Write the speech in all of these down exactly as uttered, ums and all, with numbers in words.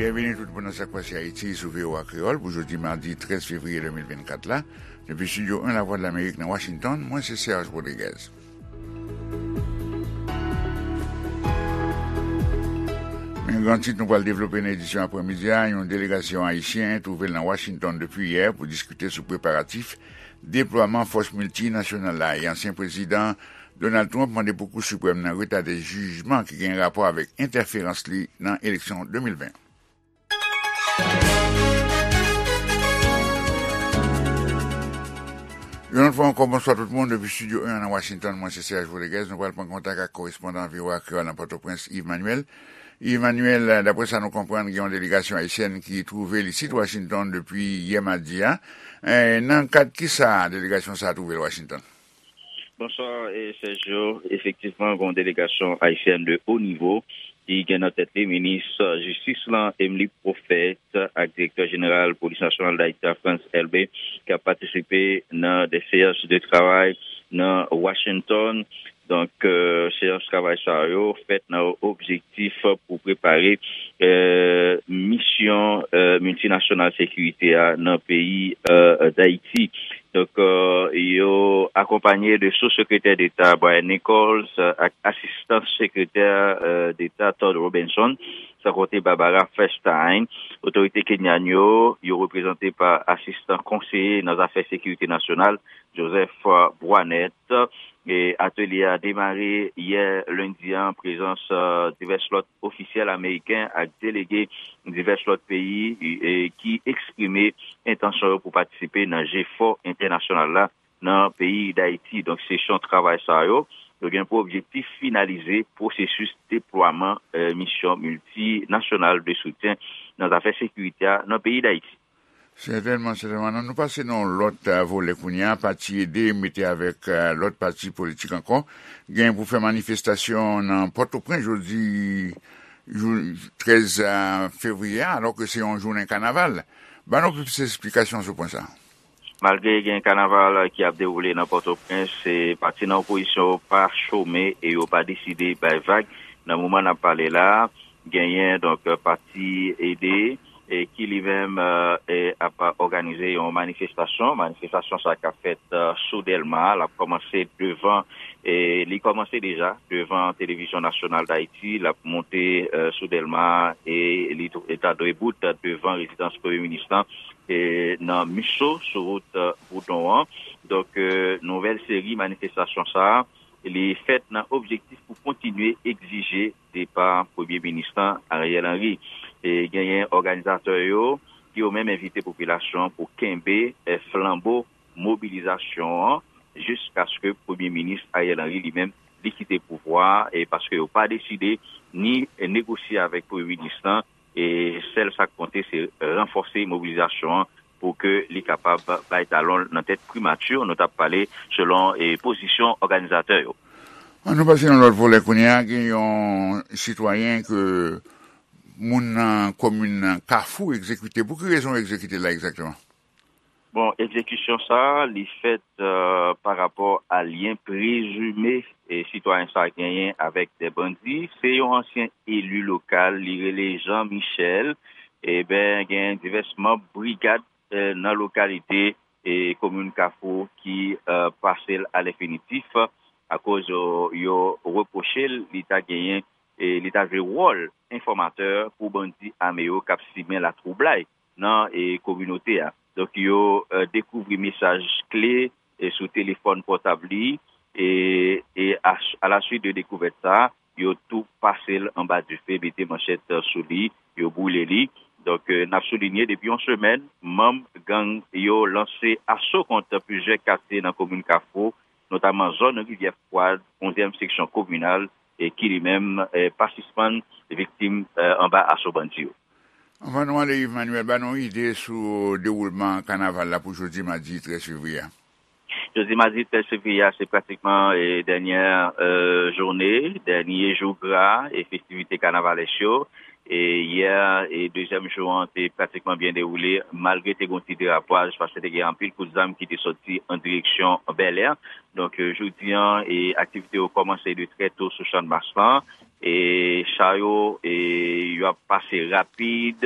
Byenveni tout moun nan Sa k Pase Ayiti sou V O A Kreyòl pou jodi madi trèz fevriye de mil vennkat la. Depi Estidyo en Lavwadlamerik nan Washington, mwen se Serge Rodriguez. Men gran tit nou pral devlope nan edisyon aprèmidi a, yon delegasyon ayisyen twouve l nan Washington depi yè pou diskite sou preparatif deplwaman fòs miltinasyonal la e ansyen prezidan Donald Trump mande pou Kou Siprèm nan retade jijman ki gen rapò avèk entèferans li nan eleksyon de mil ven. Yon lòt fwa ankò, bonswa tout moun. Depi Estidyo en nan Washington, mwen se Serge Rodriguez. Nou pral pran kontak ak korespondan V O A Kreyòl nan Pòtoprens, Yves Manuel. Yves Manuel, daprè sa nou konprann, gen yon delegasyon ayisyèn ki twouve l isit Washington depi yè madi a. Eh, nan kad ki sa delegasyon sa a twouve l Washington? Bonswa, eh, Sergio. Efektivman, gen yon delegasyon ayisyèn de o nivo ki gen nan tèt li minis jistis lan, Emmelie Prophète, ak direktè jeneral Polis Nasyonal Dayiti a, Frantz Elbé, k ap patisipe nan de seyans de travay nan Washington. Donk, eh, seyans travay sa yo fèt nan objektif pou prepare, eh, misyon, eh, miltinasyonal sekirite a nan peyi, eh, Dayiti. Donk, eh, yo akonpanye de sou sekretè deta Brian Nichols, eh, ak asistan sekretè, eh, deta Todd Robinson, san konte Barbara Feinstein. Otorite kenyan yo, yo reprezante pa asistan konseye nan zafè sekirite nasyonal, Joseph Bwanet. E atelye a demare yè lendi an, prezans, eh, divès lòt ofisyèl ameriken ak delege divès lòt peyi, eh, ki eksprime entansyon yo pou patisipe nan jefò entènasyonal la nan peyi Dayiti. Donk, sesyon travay sa yo, yo gen pou objektif finalize pwosesis deplwaman, eh, misyon miltinasyonal de soutyen nan zafè sekirite a nan peyi Dayiti. Sètènman, sètènman. Nan nou pase nan yon lòt, eh, volè kounye a, pati Ede mete avèk, eh, lòt pati politik ankò, gen pou fè manifestasyon nan Pòtoprens jodi, jou, trèz, eh, fevriye a, alò ke se yon jounen kanaval. Ban nou plis esplikasyon sou pwen sa a. Malgre gen kanaval ki ap dewoule nan Pòtoprens, eh, pati nan opozisyon yo pa chome e yo pa deside bay vag. Nan moman n ap pale la, genyen, donk, pati Ede, eh, ki li menm, eh, eh, ap òganize yon manifestasyon. Manifestasyon sa k ap fèt, eh, sou Dèlma, l ap kòmanse devan, eh, li kòmanse deja devan Televizyon Nasyonal Dayiti, l ap monte, eh, sou Dèlma e li tou, e ta dwe bout devan rezidans Premye Minis lan, eh, nan Miso, sou wout, eh, Boudon an. Donk, eh, nouvèl seri manifestasyon sa a, li fèt nan objektif pou kontinye egzije depa Premye Minis lan, Ariel Henry. E genyen òganizatè yo ki yo menm envite popilasyon an pou kenbe, eh, flanbo mobilizasyon an jiskaske Premye Minis Ariel Henry li menm li kite pouvwa a, e paske yo pa deside ni negosye avèk Premye Minis lan, e sèl sa k konte se ranfòse mobilizasyon an pou ke li kapab bay talon l nan tèt primati, nou t ap pale selon, e, pozisyon òganizatè yo. An nou pase nan lòt volè kounye a, gen yon sitwayen ke moun nan komin Kafou egzekite. Pou ki rezon yo egzekite l la egzakteman? Bon, egzekisyon sa a, li fèt, eh, pa rapò a lyen prezime, e, sitwayen sa a genyen avèk de bandi. Se yon ansyen eli lokal, li rele Jean Michel. Eben, gen divès manm brigad, eh, nan lokalite, e, komin Kafou ki, eh, pase l alèfinitif akoz yo, yo repwoche l, li ta genyen, e, li ta jwe wòl enfòmatè pou bandi ame yo k ap simen latwoublay nan, e, kominote a. Donk, yo, eh, dekouvri mesaj kle, e, sou telefòn pòtab li, e, e a, alaswit de dekouvèt sa a, yo tou pase l anba dife, mete manchèt, eh, sou li, yo boule li. Donk, eh, n ap soulinye, depi yon semèn, manm gang yo lanse aso kont plizyè katye nan komin Kafou, notaman zòn Rivyè Fwad, onzyèm seksyon kominal, e ki li menm, eh, pa sispann viktim, eh, anba aso bandi yo. Anvan nou ale, Yves Manuel, ba nou yon ide sou dewoulman kanaval la pou jodi madi trèz fevriye a. Jodi madi trèz fevriye a, se pratikman, eh, dènyè, eh, jounen, dènye jou gra e festivite kanavalès yo. E yè, e dezyèm jou an te pratikman byen dewoule, malgre te gen yon ti derapaj, paske te gen anpil kout zam ki te soti an direksyon Bèlè. Donk, eh, jodi an, e aktivite yo kòmanse de trè to sou Channmas lan. e cha yo, e yo ap pase rapid,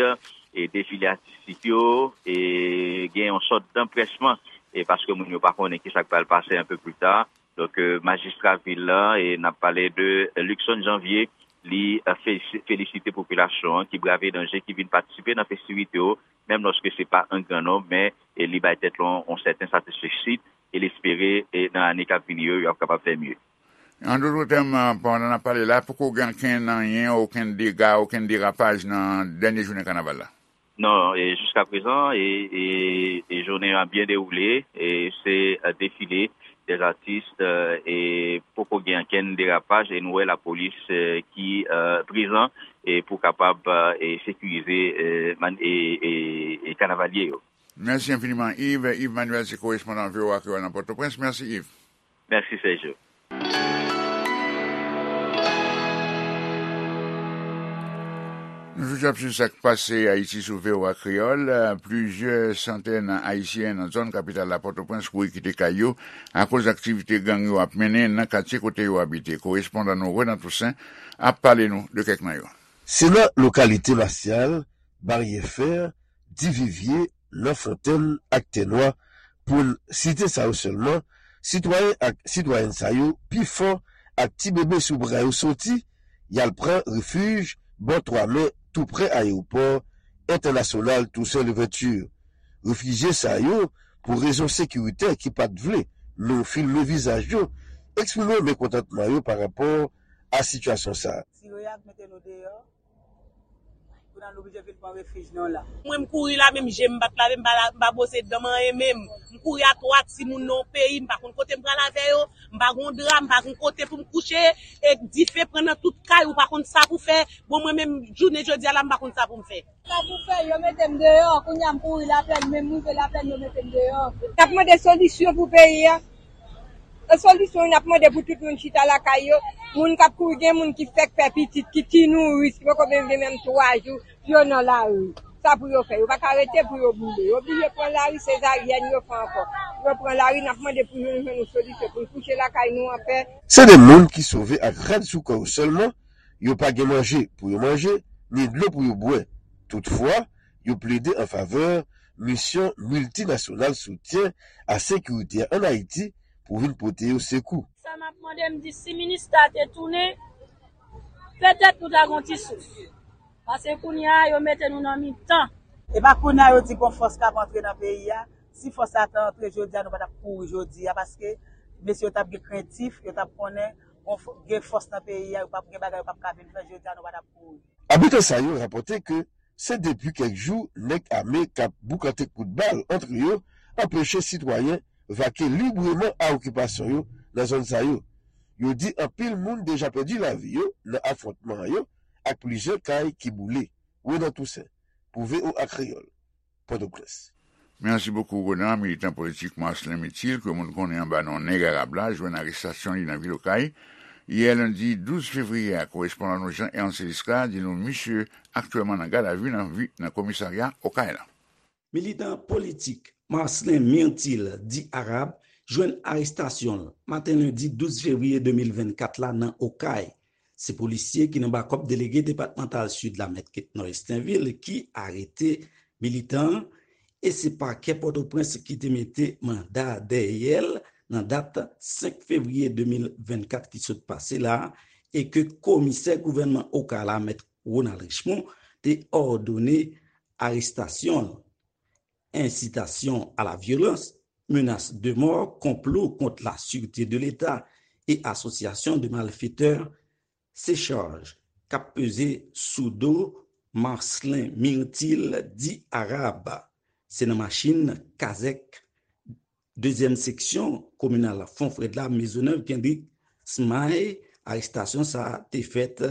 e defile atistik yo, e gen yon sòt danpresman, e paske moun yo pa konnen kisa k pral pase un peu plus tard. Donk, e, majistra vil la, e n ap pale de Luckson Janvier, li, e, fe-, felisite popilasyon an ki brave danje, ki vin patisipe nan festivite yo, menm lòske se pa an gran nonb, men, e, li bay tèt li yon, yon sèten satisfeksid, e l espere, e, nan ane k ap vini yo, yo ap kapab fè mye. An dòt tèm, pandan n ap pale la, poko gen okenn anyen, okenn dega, okenn derapaj nan dènye jounen kanaval la? Non, e jiska prezan, e, e, e jounen an byen dewoule, e se, e, defile dèzatis, e, e poko gen okenn derapaj, e nou wè lapolis, e, ki, e, prezan, e pou kapab, e, sekirize, e, man-, e, e, e kanavalye yo. Mèsi enfiniman, Yves. Yves Manuel, se korespondan V O A Kreyòl nan Pòtoprens. Mèsi, Yves. Mèsi, Sergio. Nou toujou ap swiv sa k pase Ayiti sou V O A Kreyòl. Plizyè santèn Ayisyen nan zòn kapital la, Pòtoprens, kouri kite kay yo akoz aktivite gang yo ap mennen nan katye kote yo abite. Korespondan nou, Renan Toussaint, ap pale nou de kèk nan yo. Se nan lokalite Masyal, Baryè Fè, Divivye, Nan Fontèn ak Tènwa, pou n site sa yo sèlman, sitwayen ak sitwayèn sa yo, pifò ak ti bebe sou bra yo, soti, y al pran refij bò Twa Mè, tou prè ayewopò entènasyonal Toussaint Louverture. Refijye sa yo, pou rezon sekiritè ki pa t vle nou filme vizaj yo, eksprime mekontantman yo pa rapò a sitiyasyon sa a. Tire y ak mete nou deyò. Kounye a nou oblije vin pran refij nou la. Mwen, m kouri la, menm je m pa t lave, m pa la, m pa bwose dan m, anyen menm. M kouri a twa timoun nan yon peyi, m pa konn kote m pral avè yo, m pa gon dra, m pa gon kote pou m kouche, e dife pran nan tout kay, ou pa konn sa pou fè. Bon, mwen menm, jounen jodi a la, m pa konn sa pou m fè. Sa pou fè, yo mete m deyò, kounye a m kouri Laplèn, menm m rive Laplèn, yo mete m deyò. N ap mande solisyon pou peyi a. Nan solisyon, n ap mande pou tout moun chita lakay yo. Moun k ap kouri, gen moun ki fèk fè pitit, ki ti nouris, ki poko menm gen menm twa jou, yo nan lari. Sa pou yo fè? Yo pa ka rete pou yo boule. Yo oblije pran lari, sezaryèn yo fè ankò. Yo pran lari, n ap mande pou nou jwenn yon solisyon, pou n kouche lakay nou anpè. Se de moun ki sove ak rad sou kò yo sèlman, yo pa gen manje pou yo manje, ni dlo pou yo bwè. Toutfwa, yo plede an favè misyon miltinasyonal soutyen a sekirite a ann Ayiti pou vin pote yo sekou. Sa m ap mande, m di si minis la te tounen, petèt nou ta gon ti souf. Paske kounye a, yo mete nou nan mitan. E pa kounye a yo di gon fòs k ap antre nan peyi a. Si fòs la ta antre jodi a, nou pa t ap kouri jodi a, paske mesye yo t ap gen krentif, yo t ap konnen gon fò-, gen fòs nan peyi a, yo p ap gen bagay yo p ap ka vin fè jodi a, nou pa t ap kouri. Abitan sa yo rapòte ke se depi kèk jou nèg ame k ap boukante kout bal ant yo anpeche sitwayen vake libreman a okipasyon yo nan zòn sa yo. Yo di anpil moun deja pèdi lavi yo nan afwontman yo ak plizyè kay ki boule. Renan Toussaint, pou V O A Kreyòl, Pòtoprens. Mèsi bokou, Renan. Militan politik Marcelin Myrtil, ke moun konnen anba non Nèg Arab la, jwenn arestasyon li nan vil Okay yè lendi douz fevriye a. Korespondan nou Jean Ernst Elisca di nou misye aktyèlman nan gadavi nan vi-, nan komisarya Okay la. Militan politik Marcelin Myrtil, di Arab, jwenn arestasyon l maten lendi douz fevriye de mil vennkat la nan Okay. Se polisye ki nan bakòp delege depatmantal Sid la, Mèt Ketnor Estinvil, ki arete militan an, e se pakè Pòtoprens ki te mete manda dèyè l nan dat senk fevriye de mil vennkat ki sot pase la, e ke komisè gouvènman Okay la, Mèt Ronald Richemond, te òdone arestasyon l. Incitation à la violence, menace de mort, complot contre la sûreté de l'État et association de malfaiteurs, se chaj k ap peze sou do Marcelin Myrtil, di Arab. Se nan machin kazèk dezyèm seksyon kominal Fon Frèd la, Mezonèv, Kendrick Smay, arestasyon sa a te fèt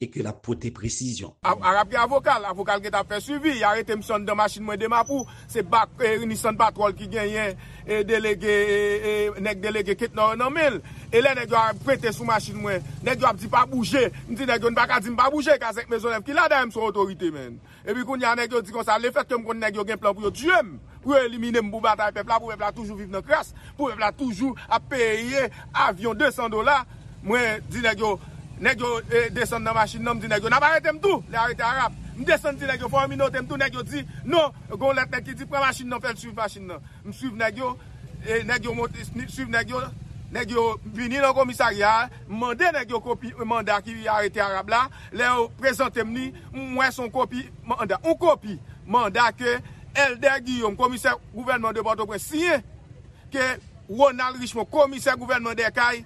e ke l ap pote presizyon. A-, Arab gen avoka l, avoka l gentan ap fè swivi, y arete misye anndan machin mwen de Mapou, se bak, e, Nissan Patrol ki genyen, e, delege, e, e, nèg delege Ketnor nan men l. E lè nèg yo ap pete sou machin mwen, nèg yo ap di pa bouje, m di nèg yo n pa ka di m pa bouje, kazèk Mezonèv ki la, dayè m se yon otorite, menn. Epi kounye a nèg yo di konsa, lefètke m konn nèg yo gen plan pou yo tiye m, pou yo elimine m, pou batay pèp la, pou pèp la toujou viv nan kras, pou pèp la toujou ap peye avyon de san dola, mwen di nèg yo, Nèg yo eh, desann nan machin nan, m di nèg yo, "N ap arete m tou, lè arete Arab." M desann di nèg yo, "Fò yo minote m tou." Nèg yo di, "Non, gen yon lèt nèg ki di, pran machin nan, fè l swiv machin nan." M swiv nèg yo, e nèg yo monte, swiv nèg yo, nèg yo vini nan komisarya a, m mande nèg yo kopi manda ki arete Arab la. Lè yo prezante m li, m wè se yon kopi manda, yon kopi manda ke Elder Guillaume, komisè gouvènman de Pòtoprens, siyen, ke Ronald Richemond, komisè gouvènman Dèkay,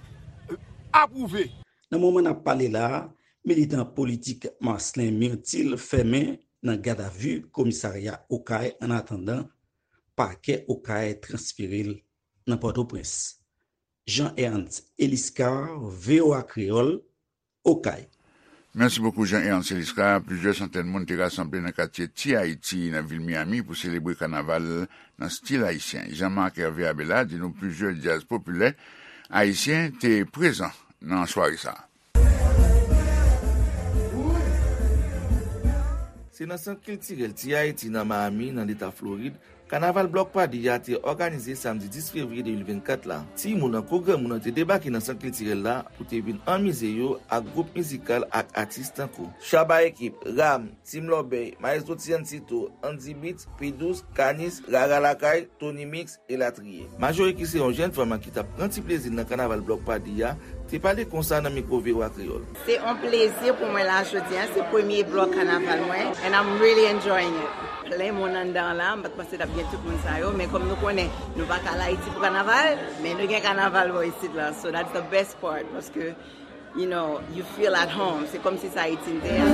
apwouve. Nan moman n ap pale la a, militan politik Marcelin Myrtil fèmen nan gadavi komisarya Okay annatandan pakè Okay transfere l nan Pòtoprens. Jean Ernst Eliscar, V O A Kreyòl, Okay. Mèsi bokou Jean Ernst Eliscar. Plizyè santèn moun te rasanble nan katye Ti Ayiti nan vil Miami pou selebre kanaval nan stil ayisyen. Jean Marc Hervé Abela di nou plizyè djaz popilè ayisyen te prezan nan sware sa a. Se nan Sant Kiltirèl Ti Ayiti nan Miami, nan Leta Florid, Kanaval Block Party a te òganize samdi dis fevriye de mil vennkat la. Timoun an kou granmoun an te debake nan sant kiltirèl la pou te vin anmize yo ak gwoup mizikal ak atis tankou Shabba Ekip, Ram, Team Lòbèy, Maestro Tiancito, Andy Beats, P Douze, Kanis, Rara Lakay, Tony Mix, elatriye. Majori ki se yon jèn fanm ki t ap pran ti plezi l nan kanaval Block Party a, te pale konsa nan mikwo V O A Kreyòl. Se yon plezi pou mwen la jodi a, se premye blòk kanaval mwen and I'm really enjoying it. Plen moun anndan an la, m pa t panse t ap gen tout moun sa yo, men kòm nou konnen nou pa ka al Ayiti pou kanaval, men nou gen kanaval bò isit la, so that's the best part paske you know, you feel at home, se kòmsi se Ayiti n te a.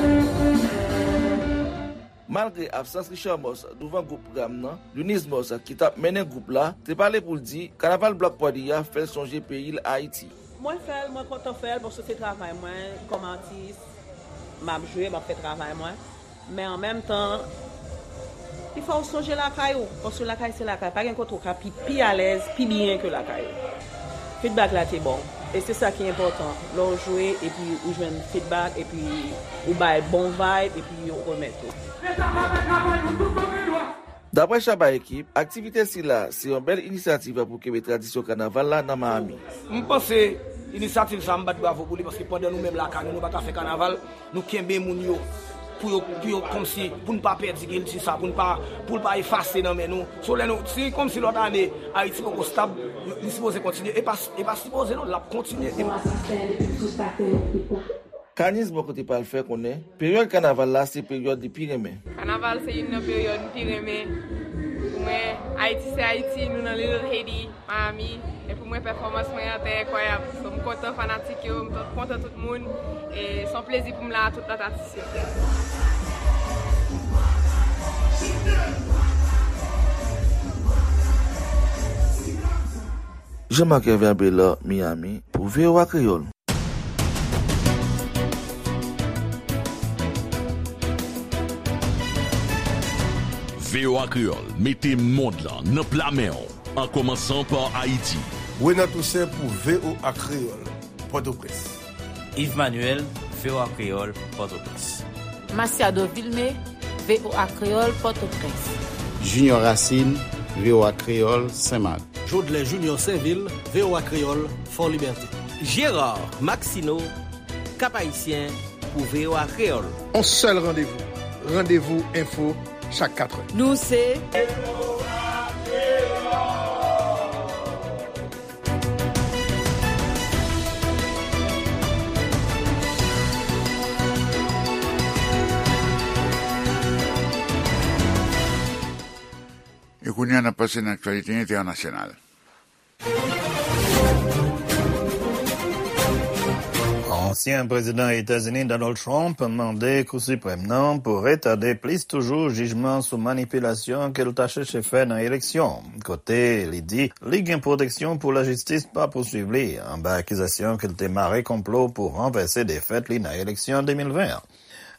Malgre absans Richard Moss douvan gwoup Ram nan, Lunise Moss ki t ap mennen gwoup la te pale pou l di kanaval Block Party a fè l sonje peyi l Ayiti. Mwen fè l, mwen kontan fè l paske se travay mwen kòm atis, m ap jwe, m ap fè travay mwen. Men an menm tan, li fè w sonje lakay ou, paske lakay se lakay, pa gen kote w ka pi pi alèz, pi byen ke lakay ou. Feedback la te bon, e se sa ki enpòtan lè w jwe epi ou jwenn feedback epi ou bay bon vibe epi yo remèt ou. Daprè Shabba Ekip, aktivite sila se yon bèl inisyativ pou kenbe tradisyon kanaval la nan Miami. M panse inisyativ sa m bat bravo pou li paske pandan nou menm lakay nou, nou pa ka fè kanaval, nou kenbe moun yo pou yo pou yo kòmsi pou n pa pèdi kilti sa, pou n pa pou l pa efase nan men nou. So lè nou si kòmsi lòt ane Ayiti poko stab, li sipoze kontinye. E pa e pa sipoze non, l ap kontinye. Kanis bò kote pa l fè konnen peryòd kanaval la se peryòd li pi renmen. Kanaval se youn nan peryòd m pi renmen. Pou mwen, Ayiti se Ayiti, nou nan Little Haiti, Miami. E pou mwen, pèfòmans mwen an te enkwayab. So, m kontan fanatik yo, m kontan tout moun. E se yon plezi pou m la a tout lòt atis yo. Jean Marc Hervé Abelard, Miami, pou V O A Kreyòl. V O A Kreyòl mete mond lan nan pla men w, an kòmansan pa Ayiti. Renan Toussaint pou V O A Kreyòl, Pòtoprens. Yves Manuel, V O A Kreyòl, Pòtoprens. Masiado Vilmé, V O A Kreyòl, Pòtoprens. Junior Racine, V O A Kreyòl, Senmak. Jodlè Junior Sainvil, V O A Kreyòl, Fòlibète. Gérard Maxineau, Cap-Haïtien, pou V O A Kreyòl. On sèl randevou, Randevou Enfo, chak katrè. Nou se. E kounye a, n ap pase nan aktyalite entènasyonal. Ansyen prezidan Etazini Donald Trump mande Kou Siprèm nan pou retade plis toujou jijman sou manipilasyon ke l ta chèche fè nan eleksyon, kote li di li gen pwoteksyon pou lajistis pa pouswiv li anba akizasyon ke l te mare konplo pou ranvèse defèt li nan eleksyon de mil ven an.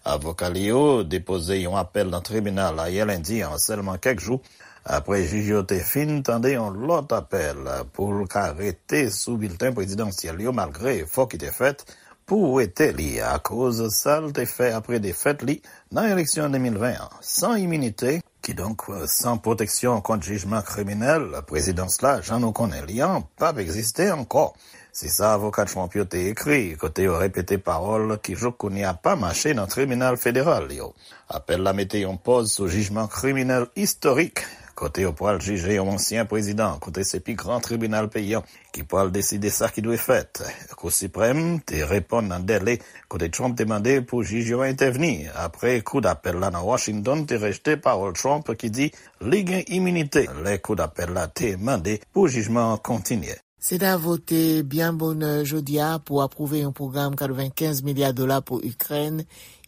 Avoka li yo depoze yon apèl nan tribinal ayè lendi an, sèlman kèk jou apre jij yo te fin tande yon lòt apèl pou l ka rete sou bilten prezidansyèl yo, malgre efò ki te fèt pou wete li akoz sa l te fè apre defèt li nan eleksyon de mil ven an. San iminite, kidonk san pwoteksyon kont jijman kriminèl, prezidans la, jan nou konnen li an, p ap egziste ankò. Se sa avoka Trump yo te ekri, kote yo repete pawòl ki jouk kounye a pa mache nan tribinal federal yo. Apèl la mete yon pòz sou jijman kriminèl istorik, kote yo pral jije yon ansyen prezidan, kote se pi gran tribinal peyi an ki pral deside sa ki dwe fèt. Kou Siprèm te reponn nan dèle, kote Trump te mande pou jij yo entèvni, apre kou dapèl la nan Washington te rejte pawòl Trump ki di li gen iminite lè kou dapèl la te mande pou jijman an kontinye. Sena vote byen bonè jodi a pou apwouve yon pwogram katrevenkenz milya dola pou Ikrèn,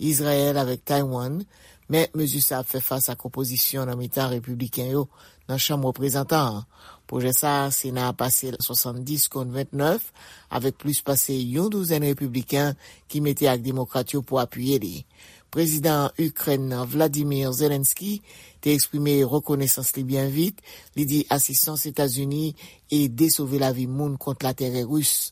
Izrayèl avèk Taiwan, men mezi sa ap fè fas ak opozisyon nan mitan repibliken yo nan Chanm Reprezantan an. Pwojè sa a, Sena a pase l swasanndis kont vennèf, avèk plis pase yon douzèn repibliken ki mete ak demokrat yo pou apiye li. Prezidan Ikrèn nan, Vladimir Zelensky, te eksprime rekonesans li byen vit. Li di asistans Etazini ede sove lavi moun kont latèrè ris.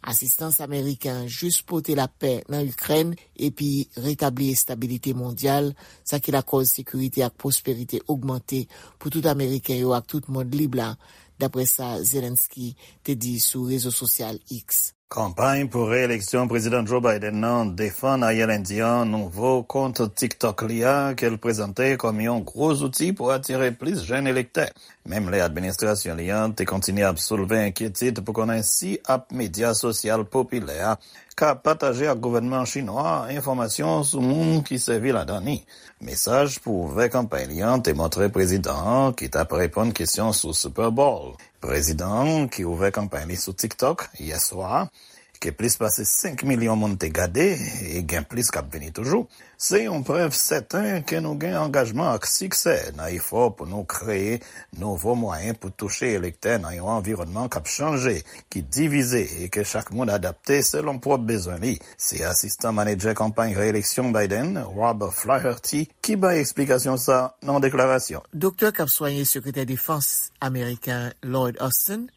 Asistans ameriken an jis pote lapè nan Ikrèn epi retabli estabilite mondyal, sa ki lakòz sekirite ak pwosperite ogmante pou tout Ameriken yo ak tout mond lib la, dapre sa Zelensky te di sou rezo sosyal X. Kanpay pou reyeleksyon Prezidan Joe Biden nan defann ayè lendi a nouvo kont TikTok li a, ke l prezante kòm yon gwo zouti pou atire plis jèn elektè. Menm lè administrasyon li an te kontinye ap soulve enkyetid pou konnen si app medya sosyal popilè a ka pataje ak gouvènman chinwa enfòmasyon sou moun ki sèvi ladan li. Mesaj pou ouvè kanpay li an te montre prezidan an ki t ap reponn kesyon sou Super Bowl. Prezidan an, ki ouvè kanpay li sou TikTok yè swa a, ke plis pase senk milyon moun te gade, e gen plis k ap vini toujou, se yon prèv sèten ke nou gen angajman ak siksè nan efò pou nou kreye nouvo mwayen pou touche elektè nan yon anviwònman k ap chanje, ki divize e ke chak moun adapte selon pwòp bezwen li. Se asistan manedjè kanpay reyeleksyon Biden, Rob Flaherty, ki bay eksplikasyon sa nan yon deklarasyon. Doktè k ap swaye Sekretè Defans ameriken Lloyd Austin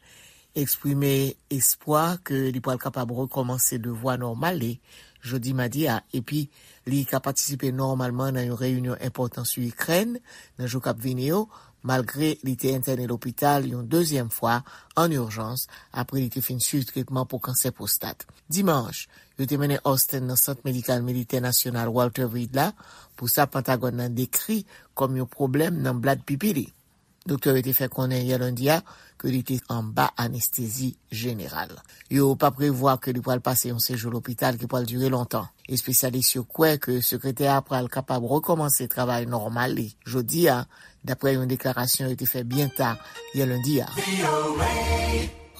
eksprime espwa ke li pral kapab rekòmanse devwa nòmal li jodi madi a, epi li ka patisipe nòmalman nan yon reyinyon enpòtan sou Ikrèn nan jou k ap vini yo, malgre li te entène lopital yon dezyèm fwa an ijans apre li te fin swiv tretman pou kansè pwostat. Dimanch, yo te mennen Austin nan Sant Medikal Militè Nasyonal Walter Reed la pou sa Pentagòn nan dekri kòm yon pwoblèm nan blad pipi li. Doktè yo te fè konnen yè lendi a ke li te anba anestezi jeneral. Yo pa prevwa ke li pral pase yon sejou lopital ki pral dire lontan. Espesyalis yo kwè ke sekretè a pral kapab rekòmanse travay nòmal li jodi a, dapre yon deklarasyon yo te fè byen ta yè lendi a.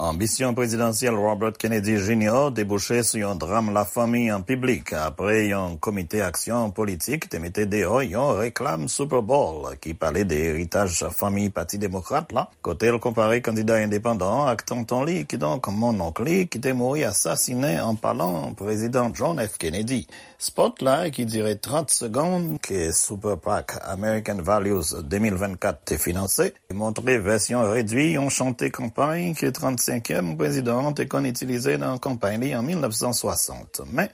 Anbisyon prezidansyèl Robert Kennedy Junior debouche sou yon dram lafanmi an piblik apre yon komite aksyon politik te mete deyò yon reklam Super Bowl ki pale de eritaj fanmi Pati Demokrat la, kote l konpare kandida endepandan an ak tonton li, kidonk monnonk li, ki te mouri asasinen an palan Prezidan John F. Kennedy. Spòt la, ki dire trant segonn, ke Super PAC American Values de mil vennkat te finanse, montre vèsyon redwi yon chante kanpay ke trannsenkyèm prezidan an te konn itilize nan kanpay li an mil nèf san swasant. Men,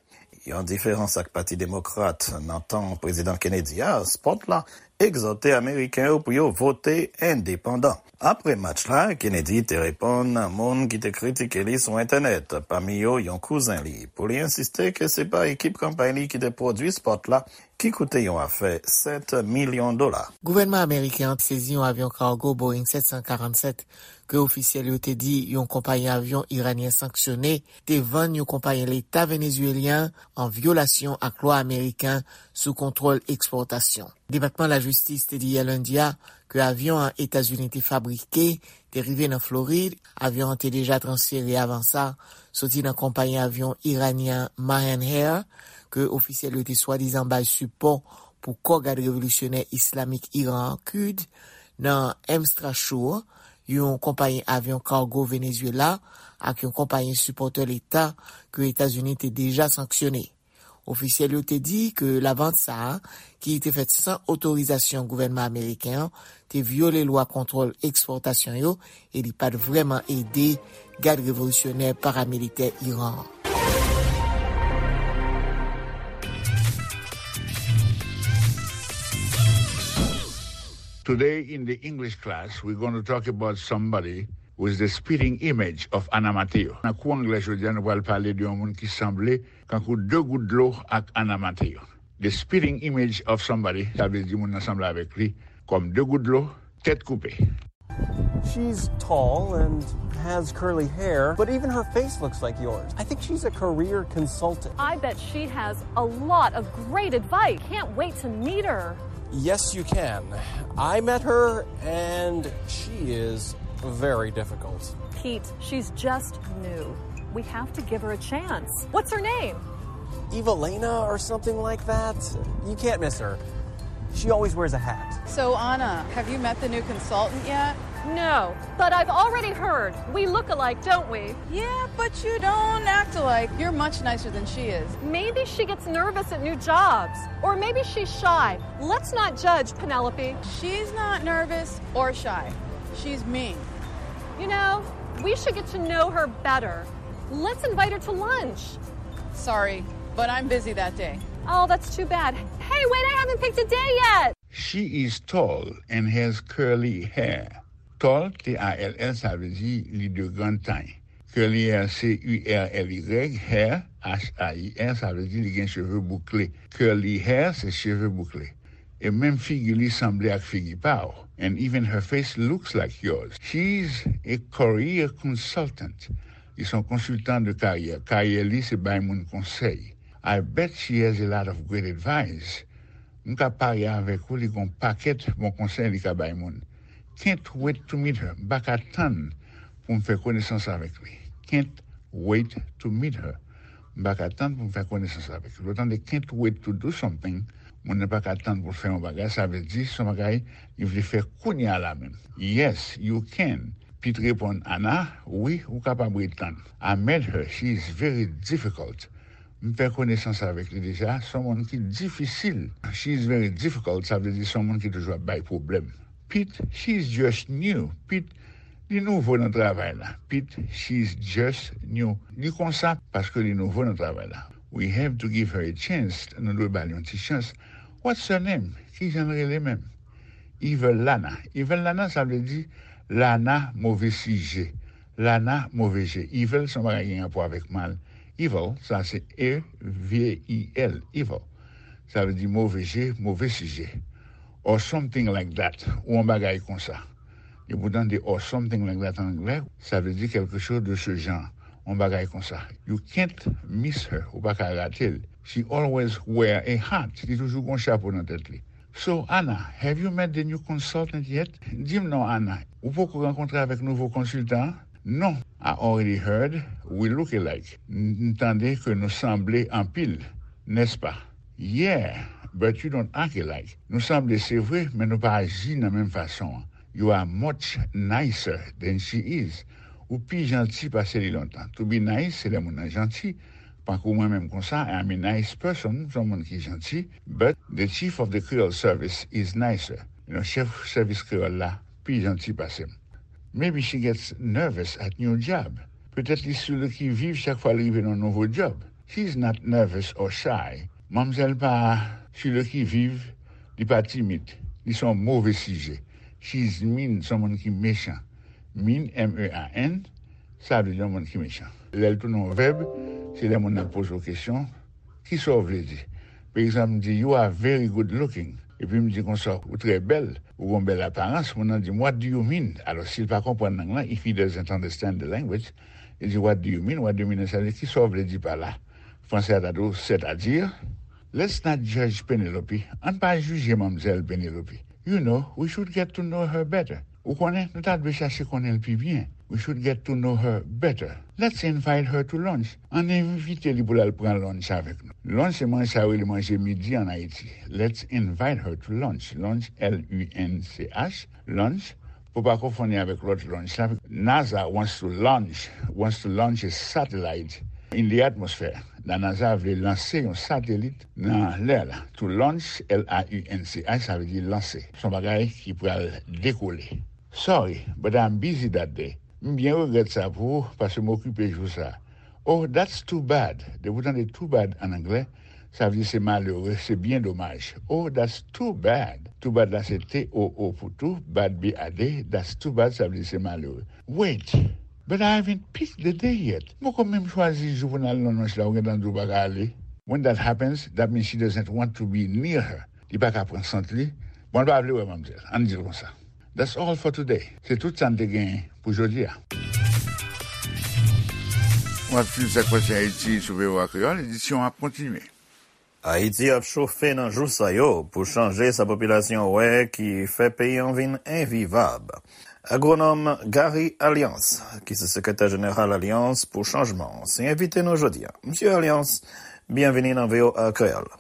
yon diferans ak Pati Demokrat nan tan Prezidan Kennedy a, spòt la egzòte Ameriken yo pou yo vote endepandan. Apre match la, Kennedy te reponn moun ki te kritike li sou entènèt, pami yo yon kouzen li, pou li ensiste ke se pa ekip kanpay li ki te pwodui spòt la, ki koute yon afè sèt milyon dola. Gouvènman ameriken an sezi yon avyon kago Boeing sèt san karannsèt ke ofisyèl yo te di yon konpayi avyon iranyen sanksyone te vann yon konpayi leta venezuelyen an vyolasyon ak lwa ameriken sou kontwòl ekspòtasyon. Depatman Lajistis te di yè lendi a ke avyon an Etazini te fabrike te rive nan Florid. Avyon an te deja transfere avan sa soti nan konpayi avyon iranyen Mahan Air, ke ofisyèl yo te swadizan bay sipò pou kò gad revolisyonè islamik Iran an, Kud, nan Amstrasure, yon konpayi avyon kago Venezuela, ak yon konpayi sipòtè leta ke Etazini te deja sanksyone. Ofisyèl yo te di ke lavant sa a, ki te fèt san otorizasyon gouvènman ameriken an, te vyole lwa kontwòl ekspòtasyon yo e li pa t vrèman ede gad revolisyonè paramilitè Iran an. Today in the English class, we're going to talk about somebody with the spitting image of Ana Mateo. Nan kou anglè jodi a, nou pral pale de yon moun ki sanble kankou de gout dlo ak Ana Mateo. The spitting image of somebody, sa vle di moun nan sanble avèk li kòm de gout dlo, tèt koupe. She's tall and has curly hair, but even her face looks like yours. I think she's a career consultant. I bet she has a lot of great advice. Can't wait to meet her. Yes, you can. I met her, and she is very difficult. Pete, she's just new. We have to give her a chance. What's her name? Evelina or something like that? You can't miss her. She always wears a hat. So, Anna, have you met the new consultant yet? No, but I've already heard. We look alike, don't we? Yeah, but you don't act alike. You're much nicer than she is. Maybe she gets nervous at new jobs. Or maybe she's shy. Let's not judge, Penelope. She's not nervous or shy. She's mean. You know, we should get to know her better. Let's invite her to lunch. Sorry, but I'm busy that day. Oh, that's too bad. Hey, wait, I haven't picked a day yet. She is tall and has curly hair. Tall, T A L L, sa vle di li de grande taille. Curly hair, C U R L Y, hair, H A I R, sa vle di li gen cheve boukle. Curly hair, se cheve boukle. E menm figi li sanble ak figi pa w. And even her face looks like yours. She's a career consultant. Li se yon konsiltan de karyè. Karyè li se bay moun konsèy. I bet she has a lot of great advice. M ka parye avèk ou, li gen yon pakèt bon konsèy li ka bay moun. Can't wait to meet her. M pa ka tann pou m fè konesans avèk li. Can't wait to meet her. M pa ka tann pou m fè konesans avèk li. Lè w tande can't wait to do something, moun nan pa ka tann pou l fè yon bagay, sa vle di se yon bagay li vle fè kounye a la menm. Yes, you can. Pete reponn Anna, wi, ou kapab ret tann. I met her, she is very difficult. M fè konesans avèk li deja, se yon moun ki difisil. She is very difficult, sa vle di se yon moun ki toujou ap bay pwoblèm. Pete, she is just new. Pete, li nouvo nan travay la. Pete, she is just new. Li konsa paske li nouvo nan travay la. We have to give her a chance. Nou dwe ba l yon ti chans. What's her name? Kijan l rele menm? Evil Lana. Evil Lana, sa vle di Lana move sijè. Lana move je. Evil se yon bagay ki gen rapò avèk mal. Evil, sa se E V I L, evil. Sa vle di move je, move sijè. Or something like that. Ou yon bagay konsa. Depi w tande or something like that an anglè, sa vle di quelque chose de ce genre. Yon bagay konsa. You can't miss her. Ou pa ka rate l. She always wear a hat. Li toujou gen yon chapo nan tèt li. So, Anna, have you met the new consultant yet? Di m non, Anna, ou poko rankontre avèk nouvo konsiltan an? Non, I already heard we look alike. M tande ke nou sanble anpil, nèspa? Yeah, but you don't act alike. Nou sanble, se vre, men nou pa aji nan menm fason an. You are much nicer than she is. Ou pi janti pase li lontan. To be nice, se lè moun nan janti. Pankou mwen menm konsa, I am a nice person, m se yon moun ki janti. But the chief of the Creole service is nicer. You know, chèf sèvis kreyòl la pi janti pase m. Maybe she gets nervous at new job. Petèt li sou le qui vive chak fwa l rive nan nouvo djòb. She is not nervous or shy. Manmzèl pa sou le qui vive, li pa timid. Li se yon move sijè. She is mean, se yon moun ki mechan. Mean, M E A N, sa vle di yon moun ki mechan. Lè l tounen yon vèb, se lè moun nan poze w kesyon, kisa w vle di? Pa egzanp, m di, you are very good looking. Epi m di konsa, ou trè bèl, ou gen yon bèl aparans. Moun nan di m, what do you mean? Alò, si l pa konprann lang lan, if he doesn't understand the language, li di, what do you mean? What do you mean? Sa vle di, kisa w vle di pa la? Fransè a ta di w, c'est-à-dire? Let's not judge Penelope. Ann pa jije manmzèl Penelope. You know, we should get to know her better. Ou konnen, nou ta dwe chache konnen l pi byen. We should get to know her better. Let's invite her to lunch. Ann envite li pou l al pran lunch avèk nou. Lunch se manje sa yo rele manje midi ann Ayiti. Let's invite her to lunch. Lunch, L U N C H, lunch, pou pa konfonn li avèk lòt lunch la. NASA wants to launch, wants to launch a satellite in the atmosphere. La NASA vle lanse yon satelit nan lè la. To launch, L A U N C H, sa vle di lanse. Se yon bagay ki pral dekole. Sorry, but I'm busy that day. M byen regrèt sa pou ou, paske m okipe jou sa. Oh, that's too bad. Depi w tande too bad ann anglè, Sa vle di se malere, se byen domaj. Oh, that's too bad. Too bad la se T O O pou tou, bad B A D, that's too bad, sa vle di se malere. Wait, but I haven't picked the day yet. Mwen poko menm chwazi jou pou n al nan nonch la, ou gentan di w pa ka ale. When that happens, that means she doesn't want to be near her. Li pa ka pran sant li. Bon, l pa vle wè manmzèl. Ann di l konsa. That's all for today. Se tout sa n te genyen pou jodi a. W ap swiv Sa k Pase Ayiti sou V O A Kreyòl. Edisyon an ap kontinye. Ayiti ap chofe nan jou sa yo pou chanje sa popilasyon wè ki fè peyi an vin envivab. Agwonòm Gary Alliance, ki se sekretè jeneral Alyans pou Chanjman, se envite nou jodi a. Mesye Alliance, byenvini nan V O A Kreyòl.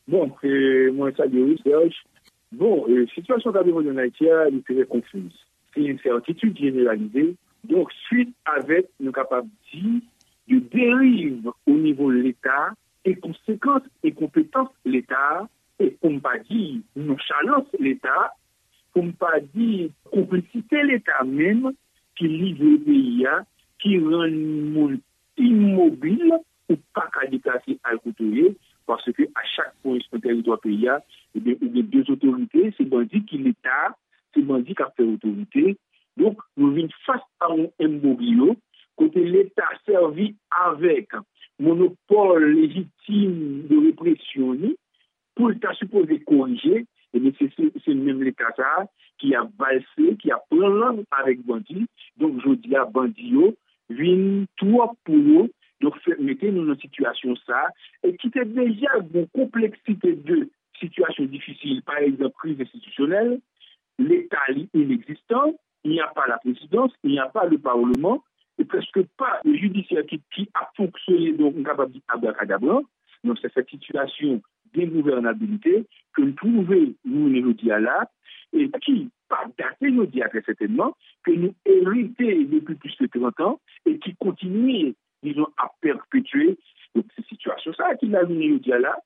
Bon, e, mwen salye w, Serge. Bon, e, sitiyasyon k ap evolye ann Ayiti a, li trè konfiz. Se ensètitid jeneralize. Donk, swit avèk, nou kapab di, de deriv o nivo Leta e konsekans enkonpetans Leta, e pou m pa di nonchalans Leta, pou m pa di konplisite Leta menm ki livre peyi a, ki rann moun imobil, ou pa ka deplase al kote w ye, paske a chak pwen sou teritwa peyi a, ebyen, ou gen de otorite, se bandi ki Leta, se bandi k ap fè otorite. Donk, nou vin fas a yon embroglio, kote Leta sèvi avèk monopòl lejitim de represyon li, pou l ta sipoze korije, ebyen, se, se, se menm Leta sa a ki ap valse, ki ap pran lang avèk bandi. Donk, jodi a, bandi yo vin twòp pou yo. Donk, fè, mete nou nan sitiyasyon sa a, e ki te deja gon konpleksite de sitiyasyon difisil, pa egzanp, kriz enstitisyonèl, Leta li inegzistan, il n'y a pas la présidence, il n'y a pas le parlement, e prèske pa le jidisyè ki, ki ap fonksyone, donk, m kapab di abrakadabra, nan sèten sitiyasyon dengouvènabilite ke n twouve nou jodi a la, e ki pa date jodi a trè sètènman, ke nou erite depi plis ke trant an, e ki kontinye, dizon, ap pèpetye. Donk, se sitiyasyon sa a ki la jounen jodi a la,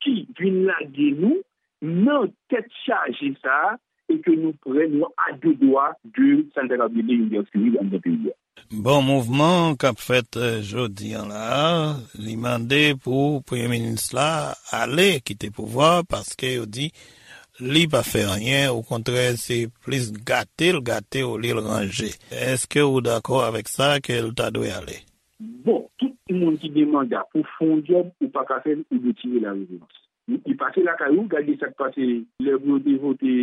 ki vin lage nou nan tèt chaje sa a, e ke nou prè, nou a de dwa de sa n ta kapab rele yon gè sivil anndan peyi a. Bon, mouvman k ap fèt, eh, jodi an la a, li mande pou premye minis la ale kite pouvwa a, paske yo di li pa fè anyen, okontrè, se plis gate l gate olye l ranje. Èske ou dakò avèk sa ke l ta dwe ale? Bon, tout moun ki gen manda pou fè yon djòb, ou pa ka fè l, ou dwe tire la reverans. Li pase lakay ou, gade sa k pase lè pou yo te vote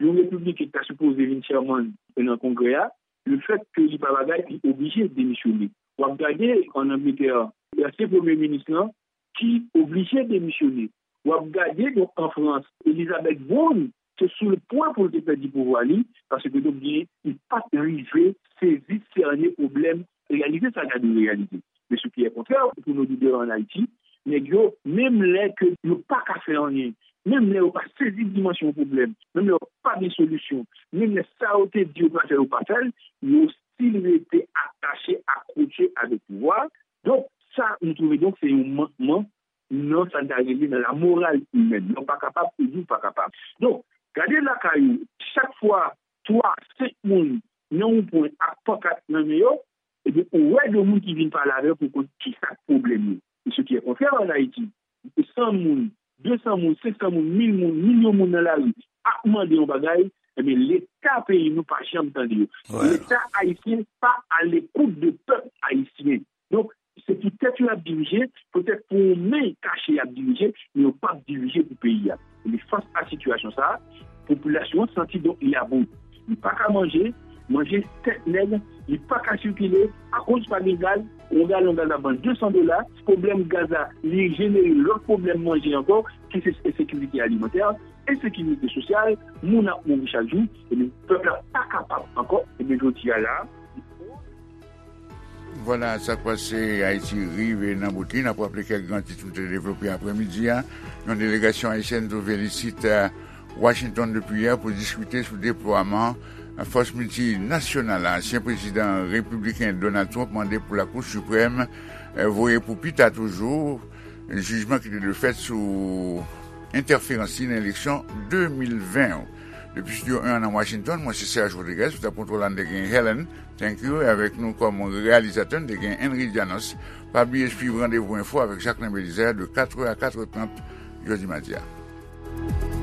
yon repibliken ki ta sipoze vin chèmann nan Kongrè a, lefèt ke li pa bagay, li oblije demisyone. W ap gade ann Angletè, ansyen premye minis lan ki oblije demisyone. W ap gade, donk, an Frans, Elizabeth Borne, se sou le pwen pou l te pèdi pouvwa li, paske, donk, gen, li pa t rive sezi, sène pwoblèm, reyalize sa k ta dwe reyalize. Men sou ki e kontrè, pou nou lidè ann Ayiti, nèg yo, menm lè ke yo pa ka fè anyen, menm lè yo pa sezi dimansyon pwoblèm, menm lè yo pa gen solisyon, menm lè sa yo te di yo pral fè, yo pa fè l, yo still rete atache, akwoche avèk pouvwa. Donk, sa, nou twouve, donk, se yon mankman nan sa n ta rele nan la morale humaine. Lè w pa kapab, ou di w pa kapab. Donk, gade lakay ou, chak fwa twa, senk moun nan yon pwen ak pankat nan men yo, ebyen, ou wè de moun ki vin pale avè w pou konn ki sa k pwoblèm yo. E ce qui est contraire en Haïti, san moun, de san moun, senk san moun, mil moun, milyon moun nan lari ap mande yon bagay, ebyen, Leta peyi nou pa janm tande yo. Leta ayisyen pa à l'écoute de pèp ayisyen. Donk, se pou tèt yo y ap dirije, poutèt pou yon men kache y ap dirije, men yo p ap dirije pou peyi a. Ebyen, fas a sitiyasyon sa a, popilasyon an santi donk li about. Li pa ka manje, manje tèt nèg, li pa ka sikile, akoz pa gen gaz, yon galon gaz ap vann de san dola, pwoblèm gaz la, li jenere lòt pwoblèm manje ankò, ki se ensekirite alimantè, ensekirite sosyal, moun ap mouri chak jou, ebyen, pèp la pa kapab ankò, ebyen, jodi a la, Vwala, sa k pase Ayiti rive nan bout li. N ap raple kèk gran tit nou te devlope aprèmidi a. Yon delegasyon ayisyèn twouve l isit, eh, Washington depi yè pou diskite sou deplwaman fòs miltinasyonal la. Ansyen prezidan repibliken Donald Trump mande pou Lakou Siprèm, eh, voye pou pita toujou jijman ki te dwe fèt sou entèferans li nan eleksyon de mil ven yo. Depi Studio en an nan Washington, mwen se Serge Rodriguez, sou tab kontwòl la n te gen Helen, thank you, e avèk nou kòm reyalizatè n te gen Henry Janos. Pa bliye swiv Randevou Enfo avèk Jacquelin Belizaire de quatre heures à quatre heures trente jodi madi a.